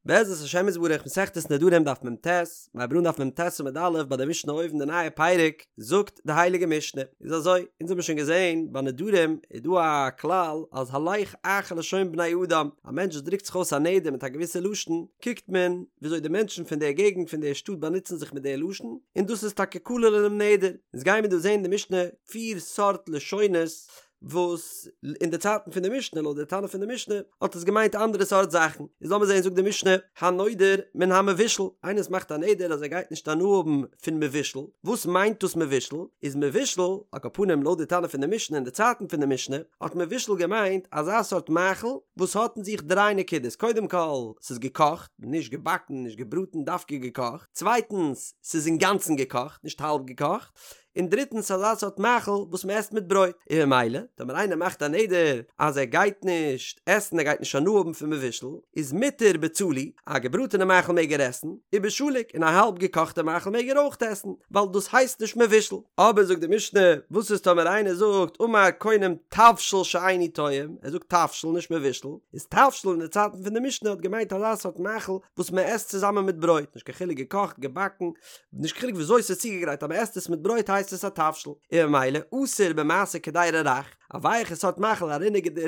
בעזרת השם יתברך מסכת נדרים דף מ"ט, מיר הייבן אן דף מ"ט עמוד א' ביי די משנה אויבן די נייע פרק, זאגט די הייליגע משנה, איז אזוי, אונז האבן שוין געזען ביי נדרים איז דא א כלל אז הלך אחר לשון בני אדם, א מענטש וואס דרוקט זיך אויס א נדר מיט א געוויסע לשון, קוקט מען וויאזוי די מענטשן פון דער געגנט פון דער שטאט באנוצן זיך מיט דער לשון, און דאס איז טאקע כולל אינעם נדר. אונז גיימיר דא זען די משנה פיר סארט לשונות וואס אין די צייטן פון די משנה לויט די תנא פון די משנה האט עס געמיינט אנדערע סארט זאכן איז לאמיר זען זאגט די משנה הנודר מן המבושל איינער וואס מאכט א נדר אז ער גייט נישט הנאה האבן פון מבושל וואס מיינט דאס מבושל איז מבושל על כל פנים לויט די תנא פון די משנה אין די צייטן פון די משנה האט מבושל געמיינט אזא סארט מאכל וואס האט אין זיך דריי נקודות קודם כל ס'איז געקאכט נישט געבאקן נישט געבראטן דווקא געקאכט צווייטנס ס'איז אינגאנצן געקאכט נישט האלב געקאכט און דריטנס אזא סארט מאכל וואס מען עסט מיט ברויט, און ממילא טאמער איינער מאכט א נדר אז ער גייט נישט עסן ער גייט נישט הנאה האבן פון מבושל, איז מותר בצלי, א געבראטענע מאכל מעג ער עסן, ובשלוק, און א האלב געקאכטע מאכל מעג ער אויך עסן, ווייל דאס הייסט נישט מבושל. אבער זאגט די משנה, וואס איז טאמער איינער זאגט אמר קונם תבשיל שאיני טועם, ער זאגט תבשיל נישט מבושל, איז תבשיל אין די צייטן פון די משנה האט געמיינט אזא סארט מאכל וואס מען עסט צוזאמען מיט ברויט, נישט קיין חילוק געקאכט, געבאקן, נישט קיין חילוק וויאזוי ס'איז צוגעגרייט אז מ'עסט עס מיט ברויט הייסט עס א תבשיל, און ממילא אסור במעשה קדירה רך, א ווייעכע סארט מאכל א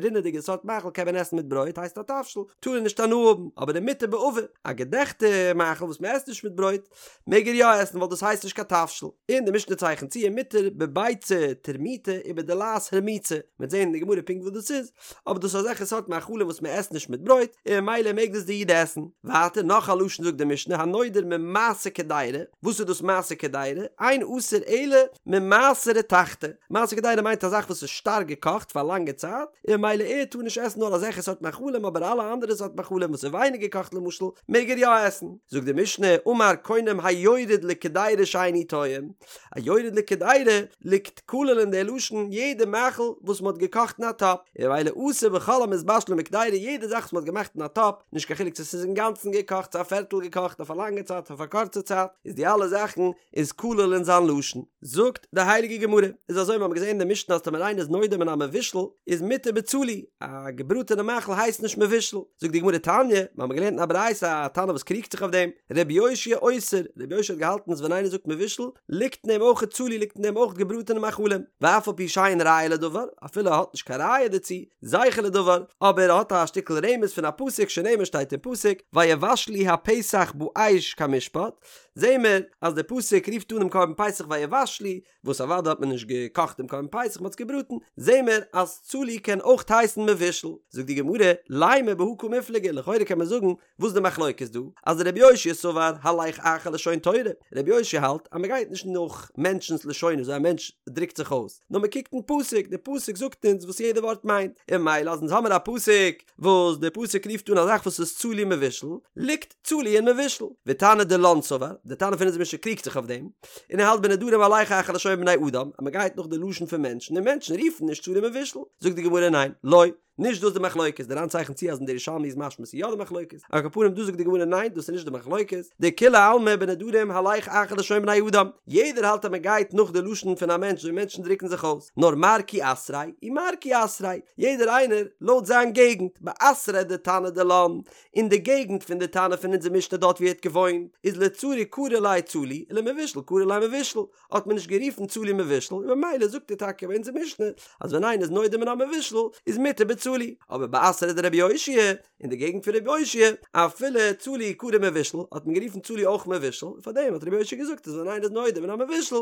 רינעדיגע סארט מאכל קען מען עסן מיט ברויט הייסט א תבשיל, טאר ער נישט הנאה האבן, אבער ומותר בעבה, א געדעכטע מאכל וואס מ'עסט נישט מיט ברויט מעג ער יא עסן ווייל דאס הייסט נישט קיין תבשיל, און די משנה צייכנט צו ומותר בביצה טורמיטא ובדלעת הרמוצה, מ'וועט זען אין די גמרא פונקט וואס דאס איז, אבער דאס איז אזעלכע סארט מאכלים וואס מען עסט נישט מיט ברויט, און ממילא מעג דאס די איד עסן. ווייטער נאך א לשון זאגט די משנה הנודר ממעשה קדירה, וואס איז דאס מעשה קדירה? אין אסור אלא ממעשה רתחתא, מעשה קדירה מיינט א זאך וואס איז שטארק געקאכט פאר א לאנגע צייט, און ממילא ער טאר נישט עסן נאר אזעלכע סארט מאכלים אבער אלע אנדערע סארט מאכלים וואס איז ווייניג געקאכט למשל מעג ער יא עסן. זאגט די משנה אמר קונם היורד לקדירה שאיני טועם, היורד לקדירה ליגט כולל אין די לשון יעדע מאכל וואס מ'האט געקאכט אין א טאפ, און ממילא אסור בכל המתבשלין בקדירה יעדע זאך וואס מ'האט געמאכט אין א טאפ, נישט קיין חילוק צו ס'איז אינגאנצן געקאכט צו א פערטל געקאכט אויף א לאנגע צייט אויף א קורצע צייט, איז די אלע זאכן איז כולל אין זיין לשון. זאגט די הייליגע גמרא, איז אזוי מ'האמיר געזען אין די משנה אז טאמער איינער איז נודר מן המבושל איז מותר בצלי, א געבראטענע מאכל הייסט נישט מבושל, זאגט די גמרא תניא, מ'האמיר געלערנט אין א ברייתא א תנא וואס קריגט זיך אויף דעם, רבי יאשיה אוסר, רבי יאשיה האט געהאלטן אז ווען איינער זאגט מבושל, ליגט אין דעם אויך צלי ליגט אין דעם אויך געבראטענע מאכלים, ואף על פי שאין ראיה לדבר, אפילו ער האט נישט קיין ראיה דערצו, זכר לדבר, אבער ער האט א שטיקל רמז פון א פסוק שנאמר שטייט אין פסוק, ויבשלו הפסח באש כמשפט, זעהן מיר אז דער פסוק רופט אן דעם קרבן פסח ויבשלו, וואס אוודאי האט מען נישט געקאכט דעם קרבן פסח מען האט עס געבראטן, זעהן מיר אז צלי קען אויך הייסן מבושל, זאגט די גמרא, לימא בהא קמיפלגי, לכאורה קען מען זאגן וואס די מחלוקת דא? אז רבי יאשיה סבר הלך אחר לשון תורה, רבי יאשיה האלט אז מען גייט נישט נאך מענטשנ'ס לשונות וויאזוי א מענטש דרוקט זיך אויס, נאר מען קוקט אין פסוק, די פסוק זאגט אונז וואס יעדע ווארט מיינט, און ממילא אז אונז האמיר א פסוק וואס די פסוק רופט אן א זאך וואס איז צלי מבושל, ליגט צלי אין מבושל. ותנא דילן סבר, די תנא פון אונזער משנה קריגט זיך אויף דעם, און ער האלט בנדרים הלך אחר לשון בני אדם, אז מען גייט נאך די לשון פון מענטשן, און מענטשן רופן נישט צלי מבושל, זאגט די גמרא ניין, לא. נישט דאס די מחלוקת, די ר"ן צייכנט צו אז אין די ירושלמי איז משמע ס'איז יא די מחלוקת, על כל פנים דא זאגט די גמרא ניין דאס איז נישט די מחלוקת, דכולי עלמא בנדרים הלך אחר לשון בני אדם, יעדער האלט אז מען גייט נאך די לשון פון א מענטש ווי מענטשן דרוקן זיך אויס, נאר מר כי אתריה ומר כי אתריה, יעדער איינער לויט זיין געגנט, באתריה דתנא דילן, אין די געגנט פון די תנא פון אונזער משנה דארט ווי ער האט געוואוינט, איז לצלי קרו ליה צלי, ולמבושל קרו ליה מבושל, האט מען נישט גערופן צלי מבושל און ממילא זאגט ער טאקע ביי אונזער משנה אז ווען איינער איז נודר מן המבושל איז מותר בצלי, אבער באתריה דרבי יאשיה, אין די געגנט פון רבי יאשיה, אפילו צלי קרו מבושל, האט מען גערופן צלי אויך מבושל, און פארדעם האט רבי יאשיה געזאגט אז ווען איינער איז נודר מן המבושל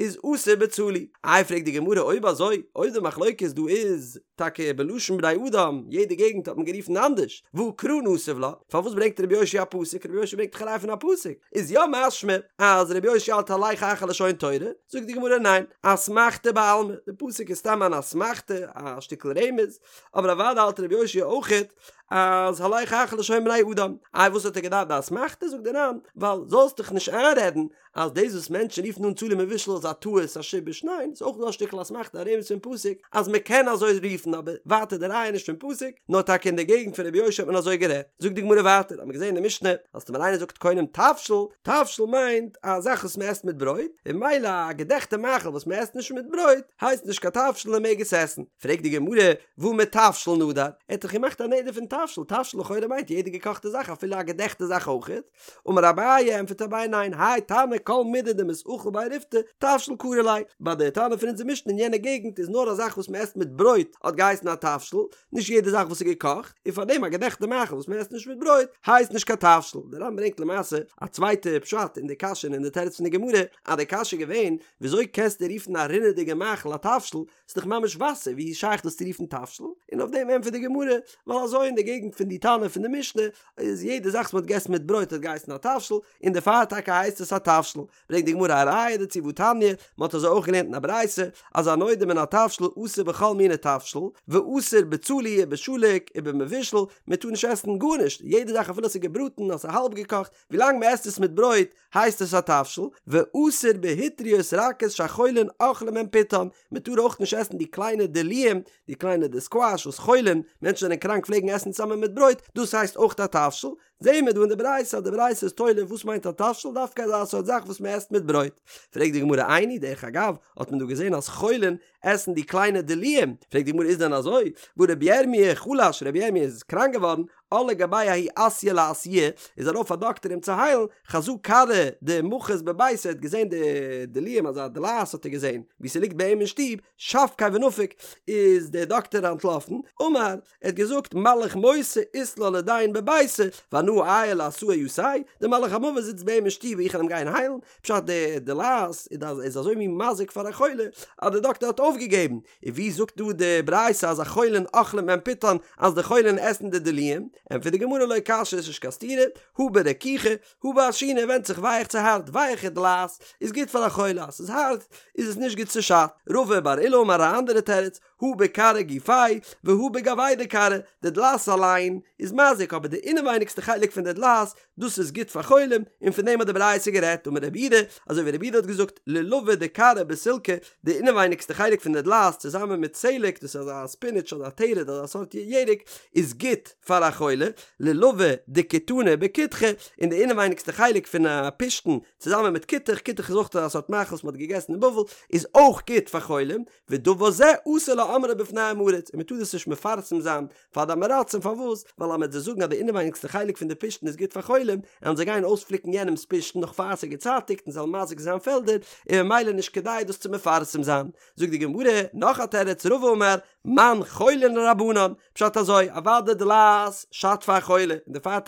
איז אסור בצלי. איי פרעגט די גמרא אויב אזוי, אויב די מחלוקת דא איז טאקע בלשון בני אדם, יעדע געגנט האט מען גערופן אנדערש, והא קרא נסיב לה, פארוואס ברענגט רבי יאשיה א פסוק, רבי יאשיה ברענגט דאך א ראיה פון א פסוק, איז יא משמע אז רבי יאשיה האלט הלך אחר לשון תורה, זאגט די גמרא ניין, אסמכתא בעלמא, די פסוק איז סתם אן אסמכתא, א שטיקל רמז, אבער אוודאי האלט רבי יאשיה אויכעט אז הלך אחר לשון בני אדם, איי וואס האט ער געדארפט די אסמכתא, זאגט די ר"ן, ווייל זאלסט דיך נישט איינרעדן אז דאס וואס מענטשן רופן אן צלי מבושל איז א טעות א שיבוש, ניין, ס'איז אויך דא א שטיקל אסמכתא א רמז פון פסוק אז מען קען אזוי רופן אבער ווייטער די ראיה איז נישט פון פסוק נאר טאקע אין די געגנט פון רבי יאשיה האט מען אזוי גערעדט. זאגט די גמרא ווייטער האט מען געזען אין די משנה אז טאמער איינער זאגט קונם תבשיל, תבשיל מיינט א זאך וואס מען עסט מיט ברויט, און ממילא א געדעכטע מאכל וואס מען עסט נישט מיט ברויט הייסט נישט קיין תבשיל און מען מעג עס עסן. פרעגט די גמרא, והא מתבשיל נדר, ער האט דאך געמאכט א נדר פון תבשיל. תבשיל, תבשיל לכאורה מיינט יעדע געקאכטע זאך אפילו א געדעכטע זאך אויכעט, אמר אביי, ענטפערט אביי ניין, האי תנא כל מידי דמתאכל ביה ריפתא, תבשיל קרי ליה, ביי די תנא פון אונזער משנה אין יענע געגנט איז נאר א זאך וואס מען עסט מיט ברויט האט געהייסן א תבשיל, נישט יעדע זאך וואס איז געקאכט, און פארדעם א געדעכטע מאכל וואס מען עסט נישט מיט ברויט הייסט נישט קיין תבשיל. דער ר"ן ברענגט למעשה א צווייטע פשט אין די קשיא און אין די תירוץ פון די גמרא, אז די קשיא איז געווען, וויאזוי קענסטו רופן א רינעדיגע מאכל א תבשיל, ס'איז דאך ממש וואסער, ווי איז שייך דאס צו רופן תבשיל? און אויף דעם ענטפערט די גמרא, ווייל אזוי אין די געגנט פון די תנא פון די משנה, איז יעדע זאך וואס מ'האט געגעסן מיט ברויט האט געהייסן א תבשיל, און דערפאר טאקע הייסט עס א תבשיל. ברענגט די גמרא א ראיה דערצו והתניא, מ'האט אזוי אויך געלערנט אין א ברייתא, אז הנודר מן התבשיל אסור בכל מיני תבשיל, ואסור בצלי ובשלוק ובמבושל, מ'טאר נישט עסן גארנישט, יעדע זאך אפילו עס איז געבראטן, אז ס'איז האלב געקאכט, ווילאנג מ'עסט עס מיט ברויט, הייסט עס א תבשיל, ואסור בהיטריות רכות שהחולין אוכלים מהן פיתן, מען טאר אויך נישט עסן די קליינע דלועים, די קליינע די סקוואש וואס חולין, מענטשן זענען קראנק פלעגן עסן צוזאמען מיט ברויט, דאס הייסט אויך א תבשיל, זעהן מיר דא אין די ברייתא אז די ברייתא איז תולה וואס מיינט א תבשיל דווקא אזא סארט זאך וואס מען עסט מיט ברויט. פרעגט די גמרא איני, דרך אגב האט מען דא געזעהן אז חולין עסן די קליינע דלועים, פרעגט די גמרא איז דען אזוי, והא רבי ירמי' חלש, רבי ירמי' איז קראנק געווארן, על לגביה ההוא אסיא לאסויי, איז ארויף א דאקטער אים צו היילן, חזא כרעא דמחת בביתיה, ער האט געזען די דלועים אזא דלעת האט ער געזען ווי ס'ליגט ביי אים אין שטוב, שבקיה ונפק, איז דער דאקטער אנטלאפן, אמר, ער האט געזאגט מלאך מותא אית ליה לידין בביתיה, ואנא אעיי לאסאה יתיה, דער מלאך המוות זיצט ביי אים אין שטוב און איך וועל אים גיין היילן, פשט די דלעת איז אזוי מין מזיק פאר א חולה אז די דאקטער האט אויפגעגעבן, און ווי זאגט דא די ברייתא אז החולין אוכלים מהן פיתן אז די חולין עסן די דלועים? ענטפערט די גמרא לא קשיא ס'איז נישט קיין סתירה, הא ברכיכא הא בעשינא ווענדט זיך ווייך צו הארט, ווייכע דלעת איז גוט פאר א חולה אז ס'איז הארט איז עס נישט גוט ס'שאדט, רבא בר עולא אמר א אנדערע תירוץ, הא בכרעא גופיה והא בגויה דכרעא, די דלעת אליין איז מזיק אבער די אינעווייניגסטע חלק פון די דלעת דאס איז גוט פאר חולים, און פון דעם האט די ברייתא גערעדט, אמר רב יהודה, אזוי ווי רב יהודה האט געזאגט, לולבא דכרעא בסילקא, די אינעווייניגסטע חלק פון די דלעת צוזאמען מיט סלק, דאס איז אזא ספינעטש אדער א תרד אזא סארט ירק, איז גוט פאר א חולה, לולבא דכיתנא בכותחא, און די אינעווייניגסטע חלק פון א פשתן צוזאמען מיט כותח, כותח איז אויך אזא סארט מאכל וואס מען האט געגעסן אין בבל, איז אויך גוט פאר חולים, ודבר זה אסור לאומרו בפני עם הארץ, און מען טאר דאס נישט מפרסם זיין פאר די עם הארצים פארוואס? ווייל אז מען וועט זיי זאגן אז די אינעווייניגסטע חלק פון די פשתן איז גוט פאר חולים, וועלן זיי גיין אויספליקן יענעמ'ס פשתן נאך פאר ס'איז געצייטיגט און זיי וועלן מזיק זיין פעלדער, און ממילא נישט כדאי דאס צו מפרסם זיין. זאגט די גמרא, נאך א תירוץ, רבא אמר, מאן חולין רבנן, פשט אזוי, אוודאי דלעת שאדט פאר א חולה, און דערפאר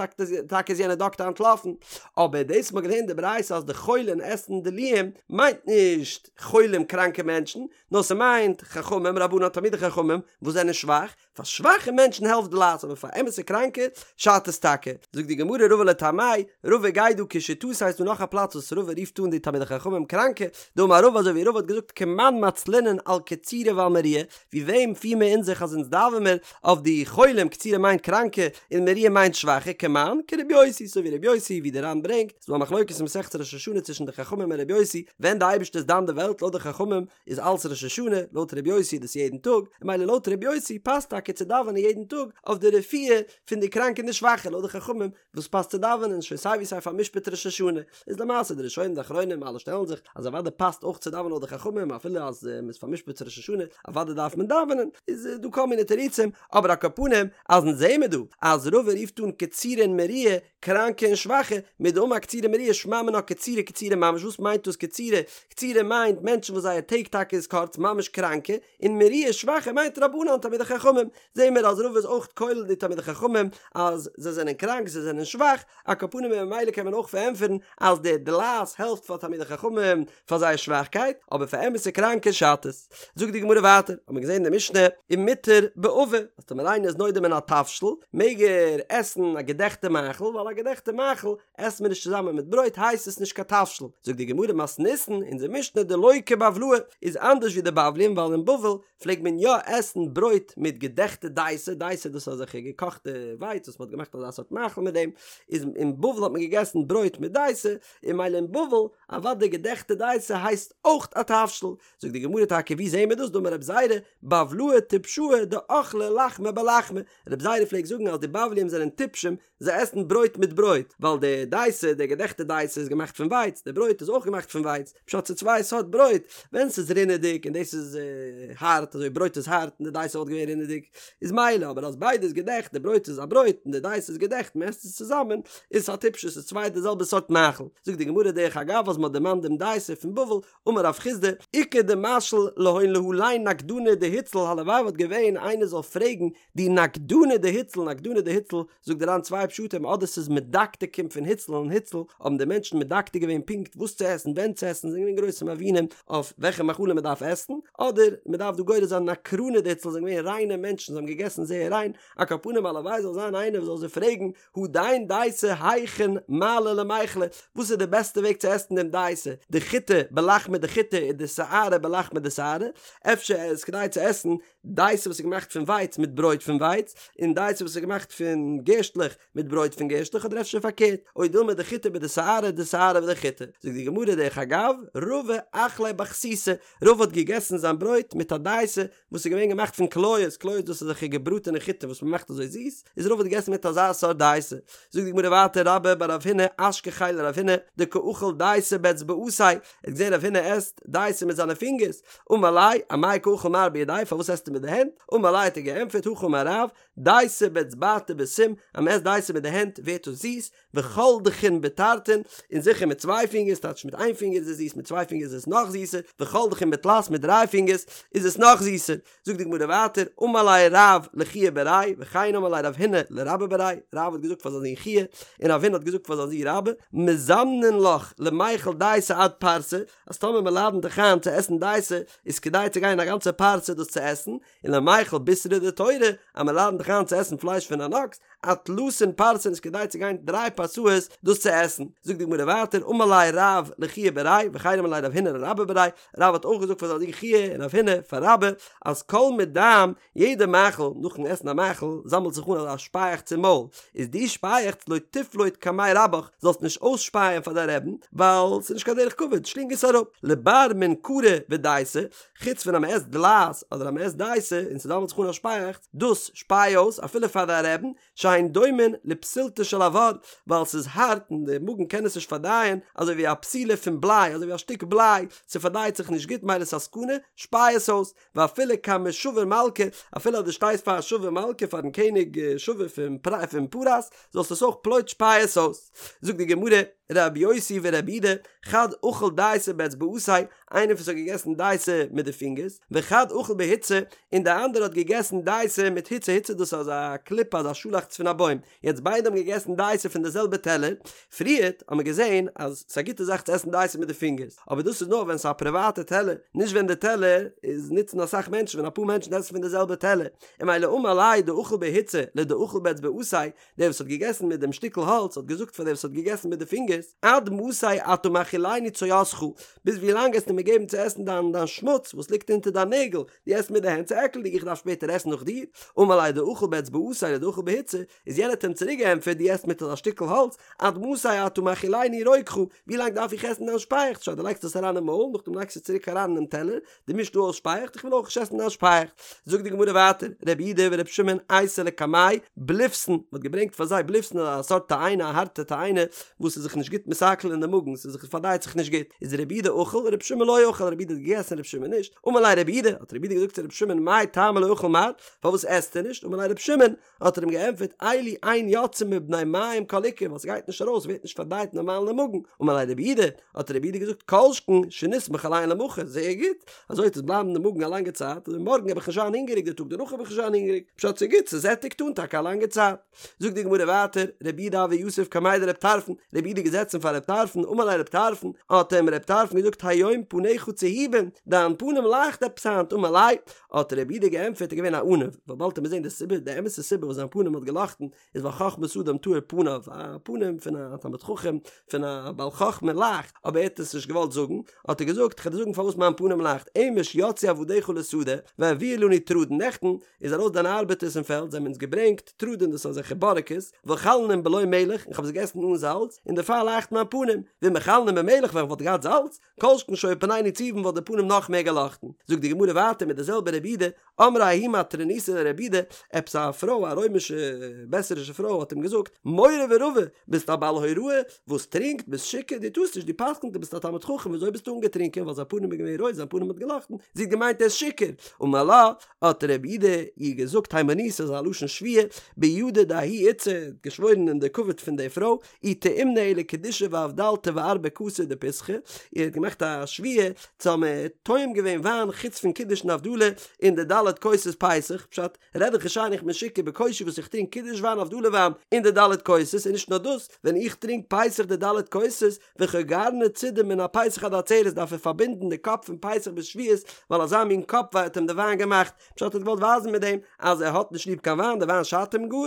טאקע איז יענער דאקטער אנטלאפן, אבער דאס מ'האט געלערנט די ברייתא אז די חולין עסן דלועים מיינט נישט חולים קראנקע מענטשן, נאר ס'מיינט חכמים, רבנן תלמידי חכמים, וואס זענען שוואך, פאר שוואכע מענטשן העלפט דלעת אבער פאר אמת'ע קראנקע שאדט עס טאקע. זאגט די גמרא רבא לטעמיה, רבא גייט דא כשיטתו ס'איז דא נאך א פלאץ וואס רבא רופט אן די תלמידי חכמים קראנקע, דאמר רבא אזוי ווי רבא האט געזאגט כמאן מצלינן על קצירי ועל מריעי, ווי וועם פיר מיר אונז זיך אז אונז דאווען מיר אויף די חולים, קצירי מיינט קראנקע און מריעי מיינט שוואכע, כמאן כרבי יוסי, אזוי ווי רבי יוסי ווי די ר"ן ברענגט, ס'איז דא א מחלוקת אין מסכת ראש השנה צווישן די חכמים און רבי יוסי ווען די אייבערשטער איז דן די וועלט לויט די חכמים איז אלץ ראש השנה, לויט רבי יוסי איז דאס יעדן טאג, און ממילא לויט רבי יוסי פאסט טאקע צו דאווענען יעדן טאג אויף די רפואה פון די קראנקע און די שוואכע, לויט די חכמים וואס פאסט צו דאווענען שוין סיי ווי סיי פאר'משפט ראש השנה, איז למעשה די ראשונים די אחרונים אלע שטעלן זיך אז אוודאי פאסט אויך צו דאווענען לויט די חכמים אפילו אז מען איז פאר'משפט צו ראש השנה אוודאי דארף מען דאווענען, איז דא כל מיני תירוצים, אבער על כל פנים אז אונז זעמער דא אז רבא רופט אן קצירי און מריעי קראנקע און שוואכע, מדאמר קצירי מריעי שמע מינה קצירי קצירי ממש, וואס מיינט דאס קצירי? קצירי מיינט מענטשן וואס זייער טעג טאקע איז קורץ, ממש קראנקע, און מריעי שוואכע מיינט רבנן תלמידי חכמים, זעהן מיר אז רבא איז אויך כולל די תלמידי חכמים אז זיי זענען קראנק זיי זענען שוואך, על כל פנים און ממילא קען מען אויך פארענטפערן אז די דלעת העלפט פאר תלמידי חכמים פאר זייער שוואכקייט, אבער פאר אמת'ע קראנקע שאדט עס. זאגט די גמרא ווייטער, האט מען געזען אין די משנה, ומותר בעבה, אז טאמער איינער איז נודר מן התבשיל, מעג ער עסן א געדעכטע מאכל, ווייל א געדעכטע מאכל עסט מען נישט צוזאמען מיט ברויט הייסט עס נישט קיין תבשיל. זאגט די גמרא מתניתין, אונזער משנה דלא כבבלאי, איז אנדערש ווי די בבלים, ווייל אין בבל פלעגט מען יא עסן ברויט מיט געדעכטע דייסע, דייסע דאס איז אזעלכע געקאכטע ווייץ וואס מען האט געמאכט אזא סארט מאכל מיט דעם, איז אין בבל האט מען געגעסן ברויט מיט דייסע, און ממילא אין בבל, אוודאי געדעכטע דייסע הייסט אויך א תבשיל, זאגט די גמרא טאקע ווי זעהן מיר דאס דאמר רב זירא בבלאי טפשאי דאכלי לחמא בלחמא, רב זירא פלעגט זאגן אז די בבלים זענען טיפשים זיי עסן ברויט מיט ברויט, ווייל די דייסע די געדעכטע דייסע איז געמאכט פון ווייץ, די ברויט איז אויך געמאכט פון ווייץ, פשט ס'איז צוויי סארט ברויט, ווען ס'איז רינעדיג און דאס איז הארט אזוי ברויט איז הארט און די דייסע וואלט געווען רינעדיג. איז מילא, אבער אז ביידע איז געדעכט, די ברויט איז א ברויט און די דייסע איז געדעכט, מען עסט עס צוזאמען, איז עס א טיפשות, ס'איז צוויי די זעלבע סארט מאכל. זאגט די גמרא דרך אגב אז מען האט דערמאנט דעם דייסע פון בבל, אמר רב חסדא, איכא דמשאיל להון להלין נקדני דהוצל הלוואי וואלט געווען איינער זאל פרעגן די נקדני דהוצל, נקדני דהוצל, זאגט דער ר"ן צוויי פשטים אדער ס'איז מדקדקים פון הוצל אין הוצל האבן די מענטשן מדקדק געווען פונקט וואס צו עסן ווען צו עסן זענען געווען גרויסע מבינים אויף וועלכע מאכלים מ'דארף עסן, אדער מ'דארף דא גורס זיין נקרני דהוצל זענען געווען ריינע מענטשן זיי האבן געגעסן זייער ריין, על כל פנים הלוואי זאל זיין איינער וואס זאל זיי פרעגן הדין דייסא היכין מעלי למיכלה, וואס איז די בעסטע וועג צו עסן דעם דייסא, דחיטי בלחמא דחיטי ודשערי בלחמא דשערי, אפשר איז כדאי צו עסן דייסא וואס איז געמאכט פון ווייץ מיט ברויט פון ווייץ, און דייסא וואס איז געמאכט פון גערשטלעך מיט ברויט פון גערשטלעך אדער אפשר פארקערט, או דילמא דחיטי בדשערי דשערי בדחיטי. זאגט די גמרא דרך אגב, רבא אכליה בחסיסי, רבא האט געגעסן זיין ברויט מיט א דייסא וואס איז געווען געמאכט פון קליות, קליות דאס איז אזעלכע געבראטענע חיטה וואס מען מאכט אזוי זיס, איז רבא האט געגעסן מיט אזא סארט דייסא. זאגט די גמרא ווייטער רבה בר רב הונא אשכחיה לרב הונא דקא אכיל דייסא באצבעתיה, ער האט געזען רב הונא עסט דייסא מיט זיינע פינגערס, אמר ליה, אמאי קא אכיל מר בידיה, פארוואס עסטו מיט די הענט? אמר ליה האט ער געענטפערט, הכי אמר רב, דייסא באצבעתא בסים, אז מען עסט דייסא מיט די הענט ווערט עס זיס, וכל דכין בתרתין, און זיכער מיט צוויי פינגערס, טייטש מיט איין פינגער איז עס זיס, מיט צוויי פינגערס איז עס נאך זיסער, וכל דכין בתלת, מיט דריי פינגערס איז עס נאך זיסער. זאגט די גמרא ווייטער, אמר ליה רב לחייא בריה, וכן אמר ליה רב הונא לרבה בריה, רב האט געזאגט פאר זיין זון חייא, און רב הונא האט געזאגט פאר זיין זון רבה, מזמנין לך למיכל דייסא עד פרסה, אז טאמער מען לאדענט דיך איין צו עסן דייסא, איז כדאי צו גיין א גאנצע פרסה דאס צו עסן, און למיכל בישרא דתורא, אז מען לאדענט דיך איין צו עסן פלייש פון אן אקס, עד תלתין פרסין איז כדאי צו גיין דריי פרסאות דאס צו עסן. זאגט די גמרא ווייטער, אמר ליה רב לחייא בריה, וכן אמר ליה רב הונא לרבה בריה, רב האט אויך געזאגט פאר זיין זון חייא און רב הונא פאר רבה, אז כל מדם, יעדע מאכל, נאכן עסן א מאכל, זאמלט זיך אן אזא שפייעכץ אין מויל, איז די שפייעכץ לא תפלוט קמי רבך, זאלסט נישט אויסשפייען פאר דיין רעבן, ווייל ס'איז נישט קיין דרך כבוד, שלינג עס אראפ. לבר מן קרי ודייסא, חוץ פון אז מ'עסט דלעת אדער אז מ'עסט דייסא און ס'זאמלט זיך אן א שפייעכץ, דאס שפיי אויס אפילו פאר דיין רעבן, שהן דומין לפתילתא של אבר, ווייל ס'איז הארט און די מאגן קען עס נישט פארדייען, אזוי ווי א פתילה פון בליי, אזוי ווי א שטיק בליי, ס'פארדייט זיך נישט גוט מילא ס'איז א סכנה, שפיי עס אויס, ואפילו קמי שבור מלכא, אפילו אז דו שטייסט פאר א שבור מלכא פארן קעניג שבור פון פרס, זאלסט עס אויך פלוט שפיי עס אויס. זאגט די גמרא, רבי יוסי ורבי יהודה, חד אכיל דייסא באצבעתיה, איינער וואס האט געגעסן דייסע מיט די פינגערס, וחד אכיל בהוצא, און דער אנדערע האט געגעסן דייסע מיט הוצא, הוצא דאס איז אזא קליפה אזא שאלאכץ פון א בוים, יעצט ביידע האבן געגעסן דייסע פון די זעלבע טעלער, פריערט האט מען געזען אז ס'איז א גוטע זאך צו עסן דייסע מיט די פינגערס, אבער דאס איז נאר ווען ס'איז א פריוואטע טעלער, נישט ווען די טעלער איז נוצן אסאך מענטשן, ווען אפאר מענטשן עסן פון די זעלבע טעלער, און מילא אמר ליה דאכיל בהוצא לדאכיל באצבעתיה, דער וואס האט געגעסן מיט דעם שטיקל האלץ האט געזאגט פאר דער וואס האט געגעסן מיט די פינגערס, עד מתי אתה מאכילני צואתך, ביז ווי לאנג עסטו מיר געבן צו עסן דיין דיין שמוץ וואס ליגט אונטער דיין נעגל, דו עסט מיט די הענט ס'איז עקלדיג איך דארף שפעטער עסן נאך דיר, אמר ליה דאכיל באצבעתיה לדאכיל בהוצא, איז יענער האט אים צוריק געענטפערט דו עסט מיט אזא שטיקל האלץ, עד מתי אתה מאכילני רוקך, ווי לאנג דארף איך עסן דיין שפייעכץ, שוין דו לייגסט עס אריין אין מויל נאכדעם לייגסטו עס צוריק אריין אינעם טעלער, דו מישט דא אויס שפייעכץ, איך וויל אויך נישט עסן דיין שפייעכץ. זאגט די גמרא ווייטער, רבי יהודה ורבי שמעון אייתו לקמייהו בליפתין, מען האט געברענגט פאר זיי בליפתין א סארט תאנה א הארטע תאנה וואס איז זיך נישט גוט מתעכל אין די מאגן, ס'איז זיך פארדייט זיך נישט גוט, איז רבי יהודה אכיל רבי שמעון לא אכיל, רבי יהודה האט געגעסן רבי שמעון נישט, אמר ליה רבי יהודה, האט רבי יהודה געזאגט צו רבי שמעון מאי טעמא לא אכיל מר, פארוואס עסט ער נישט, אמר ליה רבי שמעון, האט ער אים געענטפערט, אלו אין יוצאין מבני מעיים כל עיקר, ווייל ס'גייט נישט ארויס, ווערט נישט פארדייט נארמאל אין די מאגן, אמר ליה רבי יהודה, האט רבי יהודה געזאגט, כל שכן שנסמוך עליהן למחר, זייער גוט, אזוי וועט עס בלייבן אין די מאגן א לאנגע צייט, און מארגן וועל איך נישט זיין הונגעריג, די טאג דערנאך וועל איך נישט זיין הונגעריג, פשט ס'איז גוט, ס'זעטיגט אן טאקע א לאנגע צייט. זאגט די גמרא ווייטער, רבי יהודה הוה יתיב קמיה דרבי טרפון, רבי יהודה איז געזעצן פאר רבי טרפון, אמר ליה רבי טרפון, האט אים רבי טרפון געזאגט היום פניך צהובין, דיין פנים לייכט עפעס היינט, אמר ליה, האט רבי יהודה געענטפערט ער איז געווען א עניו, ווייל באלד וועט מען זען די סיבה, די אמת'ע סיבה וואס זיין פנים האט געלאכטן, איז ווייל חכמת אדם תאיר פניו, א פנים פון א תלמיד חכם, פון א בעל חכמה לייכט, אבער ער האט עס נישט געוואלט זאגן, האט ער געזאגט, כ'וועל דיר זאגן פארוואס מיין פנים לייכט, אמש יצאו עבדיך לשדה, והביאו לנו תרדין, נעכטן איז ארויס דיינע ארבעטערס אין פעלד, זיי האבן אונז געברענגט תרדין, דאס איז אזעלכע בארעקעס, ואכלנום בלא מלח, און כ'האב זיי געגעסן אן זאלץ, און דערפאר לייכט מיין פנים, ואם אכלנום במלח, ווען כ'וואלט געהאט זאלץ, כל שכן שהיו פנינו צהובין וואלט די פנים נאך מער געלאכטן. זאגט די גמרא ווייטער מיט די זעלבע רבי יהודה, אמרה ההיא מטרוניתא לרבי יהודה, עפעס א פרוי א רוימישע בעסערישע פרוי האט אים געזאגט, מורא ורבא, ביסט א בעל הוראה וואס טרינקט, ביסט שיכור, דו טארסט נישט, דו פסק'נט דו ביסט א תלמיד חכם וויאזוי ביסטו אנגעטרינקען, ווייל זיין פנים איז געווען רויט זיין פנים האט געלאכטן, זי האט געמיינט ער איז שיכור, אמר לה, האט רבי יהודה איר געזאגט הימנותא איז א לשון שבועה, בידא דההיא איתתא, האט געשוואוירן אין די כבוד פון די פרוי, אי טעימנא אלא קידושא ואבדלתא וארבע כסי דפסחא, ער האט געמאכט א שבועה צו האבן טועם געווען וויין חוץ פון קידוש און הבדלה אין די ד' כוסות פסח, פשט, רעד איך נישט איין איך בין שיכור בקושי וואס איך טרינק קידוש וויין הבדלה וויין אין די ד' כוסות און נישט נאר דאס, ווען איך טרינק פסח די ד' כוסות וחוגרני צידי מן הפסח עד העצרת דארף ער פארבינדן די קאפ פון פסח ביז שבועות ווייל אזא מין קאפ וויי האט אים די וויין געמאכט, פשט ער האט געוואלט ווייזן מיט דעם אז ער האט נישט ליב קיין וויין די וויין שאדט אים גאר,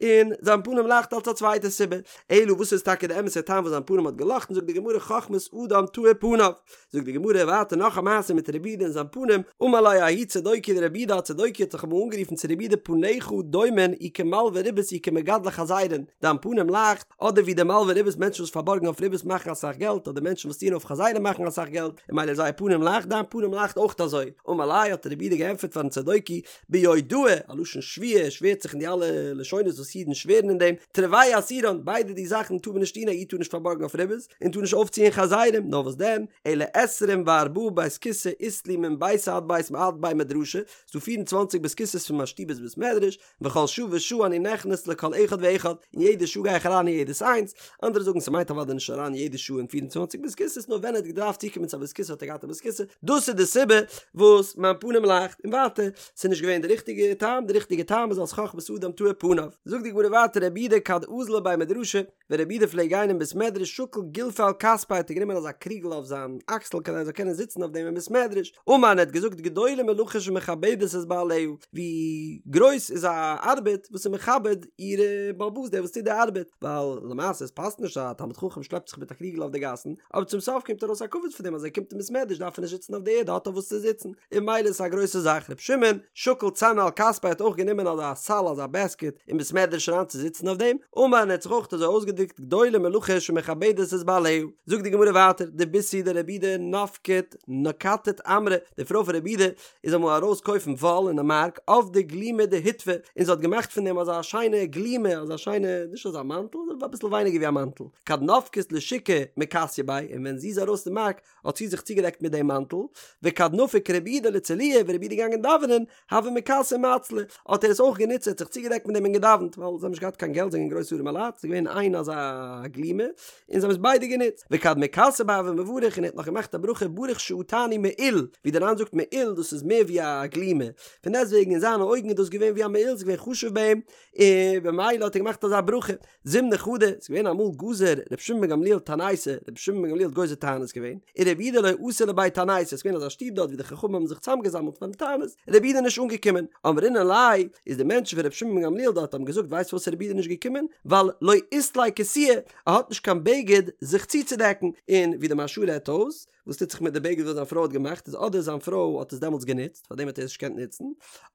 און זיין פנים לייכט אלס א צווייטע סיבה, אלא וואס איז טאקע די אמת'ע טעם וואס זיין פנים האט געלאכטן זאגט די גמרא חכמת אדם תאיר פניו, זאגט די גמרא ווייטער נאך א מעשה מיט רבי יהודה און זיין פנים, אמר ליה ההוא צדוקי לרבי יהודה א צדוקי האט זיך אמאל אנגערופן צו רבי יהודה פניך דומין אי כמלוי ריבית אי כמגדלי חזירין, דיין פנים לייכט אדער ווי די מלוי ריבית מענטשן וואס פארבארגן אויף ריבית מאכן אסאך געלט אדער מענטשן וואס טוען אויף חזירים מאכן אסאך געלט און ממילא זייער פנים לייכט דיין פנים לייכט אויך אזוי, אמר ליה האט רבי יהודה געענטפערט פארן צדוקי ביודעי, א לשון שבועה, ער שווערט זיך אין די אלע לשונות וואס אידן שווערן אין דעם, תרוייהו אסירן, ביידע די זאכן טאר מען נישט טון, א איד טאר נישט פארבארגן אויף ריבית, און טאר נישט אויפציען חזירים, נאר וואס דען, אלא עשרים וארבעה בית כסא אית לי מן ביתא עד בית עד בי מדרשא, ס'דא פיר און צוואנציג בית כסא'ס פון מיין שטוב ביז בית מדרש, וכל שעה ושעה אני נכנס לכל אחד ואחד, און יעדע שעה גיי איך אריין אין יעדעס איינס, אנדערע זאגן ס'מיינט אוודאי נישט אריין יעדע שעה אין 24 בית כסא'ס נאר ווען ער האט געדארפט צוקומען צו א בית כסא האט ער געהאט א בית כסא, דאס איז די סיבה וואס מיין פנים לייכט, און ווייטער, ס'איז נישט געווען די ריכטיגע טעם, די ריכטיגע טעם איז אלס חכמת אדם תאיר פניו. זאגט די גמרא ווייטער רבי יהודה כד אזיל לבי מדרשא, ווען רבי יהודה פלעגט גיין אין בית מדרש שקיל גולפא על כתפיה האט ער גענומען אזא קריגל אויף זיין אקסל כדי ער זאל קענען זיצן אויף דעם אין בית מדרש, אמר און ער האט געזאגט גדולה מלאכה שמכבדת את בעליה, ווי גרויס איז א ארבעט וואס איז מכבד איר בעל הבית דער וואס טוט די ארבעט, ווייל למעשה עס פאסט נישט אז א תלמיד חכם שלעפט זיך מיט א קריגל אויף די גאסן, אבער צום סוף קומט ארויס א כבוד פון דעם אז ער קומט אין בית מדרש דארף ער נישט זיצן אויף די ערד ער האט אויף וואס צו זיצן, און ממילא איז עס א גרויסע זאך, רבי שמעון שקיל צנא על כתפיה האט אויך גענומען אזא סל אזא בעסקעט אין בית מדרש אריין צו זיצן אויף דעם, אמר און ער האט זיך אויך אזוי אויסגעדרוקט גדולה מלאכה שמכבדת את בעליה, זאגט די גמרא ווייטער, דביתהו דרבי יהודה נפקת נקטת עמרא, די פרוי פון רבי יהודה איז אמאל ארויס קויפן וואל אין די מארק עבדה גלימא דהוטבא, און זי האט געמאכט פון דעם אזא שיינע גלימה, אזא שיינע, נישט אזא מאנטל, אביסל ווייניגער ווי א מאנטל, כד נפקת לשוקא מכסיא ביה, און ווען זי איז ארויס אין מארק האט זי זיך צוגעדעקט מיט דעם מאנטל, וכד נפיק רבי יהודה לצלויי, ווען רבי יהודה איז געגאנגען דאווענען, הוה מכסי ומצלי, האט ער עס אויך גענוצט, ער האט זיך צוגעדעקט מיט דעם און געדאווענט, ווייל זיי האבן נישט געהאט קיין געלט, זיי זענען גרויסע ארימע לייט, ס'איז געווען איין אזא גלימה, און זיי האבן עס ביידע גענוצט, וכד מכסי ביה הוה מברך, און ער האט נאך געמאכט א ברכה ברוך שעטני מעיל, ווי דער ר"ן זאגט מעיל דאס איז מער ווי א גלימה, פון דעסטוועגן אין זיינע אויגן איז דאס געווען ווי א מעיל, ס'איז געווען חשוב ביי אים, און במילא האט ער געמאכט אזא ברכה. זימנא חדא, ס'איז געווען אמאל גזר ר' שמעון בן גמליאל תעניתא, ר' שמעון בן גמליאל האט גוזר תענית געווען, און רבי יהודה לא אתא לבי תעניתא, ס'איז געווען אזא שטוב דארט ווי די חכמים האבן זיך צוזאמגעזאמלט פארן תענית, רבי יהודה איז נישט אנגעקומען, אמרינהו ליה, איז די מענטשן פון ר' שמעון בן גמליאל דארט האבן געזאגט ווייסט פארוואס רבי יהודה איז נישט געקומען? ווייל לא אית ליה כסויא, ער האט נישט קיין בגד זיך צוצודעקן, און ווי די מהרש"א רעדט אויס, וואס טוט זיך מיט די בגד וואס זיין פרוי האט געמאכט איז אדער זיין פרוי האט עס דעמאלטס גענוצט פארדעם האט ער עס נישט געקענט נוצן,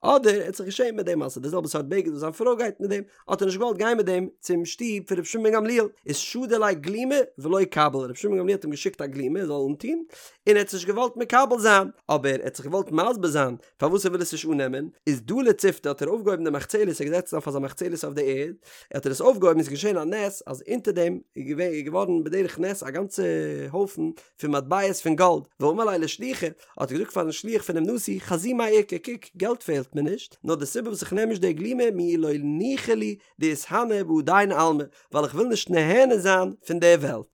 אדער ער האט זיך געשעמט מיט דעם אז ס'איז די זעלבע סארט בגד וואס זיין פרוי גייט מיט דעם, האט ער נישט געוואלט גיין מיט דעם צום שטוב פון רבי שמעון בן גמליאל, איז שדר ליה גלימא ולא קביל, רבי שמעון בן גמליאל האט אים געשיקט א גלימא ער זאל אנטון, און ער האט עס נישט געוואלט מקבל זיין, אבער ער האט זיך געוואלט מסביר זיין פארוואס ער וויל עס נישט אננעמען, איז דלי ציפתא האט ער אויפגעהויבן די מחצלת, ער איז געזעצן אויף אזא מחצלת אויף די ערד, האט ער עס אויפגעהויבן איז געשען א נס אז אונטער דעם איז געווען איז געווארן בדרך נס א גאנצע הויפן פון מטבעות פון גאלד, ואמר ליה לשליחא, האט ער געזאגט פארן שליח פונעם נשיא, חזי מאי איכא, קוק, געלט פעלט מיר נישט, נאר די סיבה וואס איך נעם נישט די גלימא מיהו לא ניחא לי דאתהני בהדין עלמא, ווייל איך וויל נישט נהנה זיין פון די וועלט.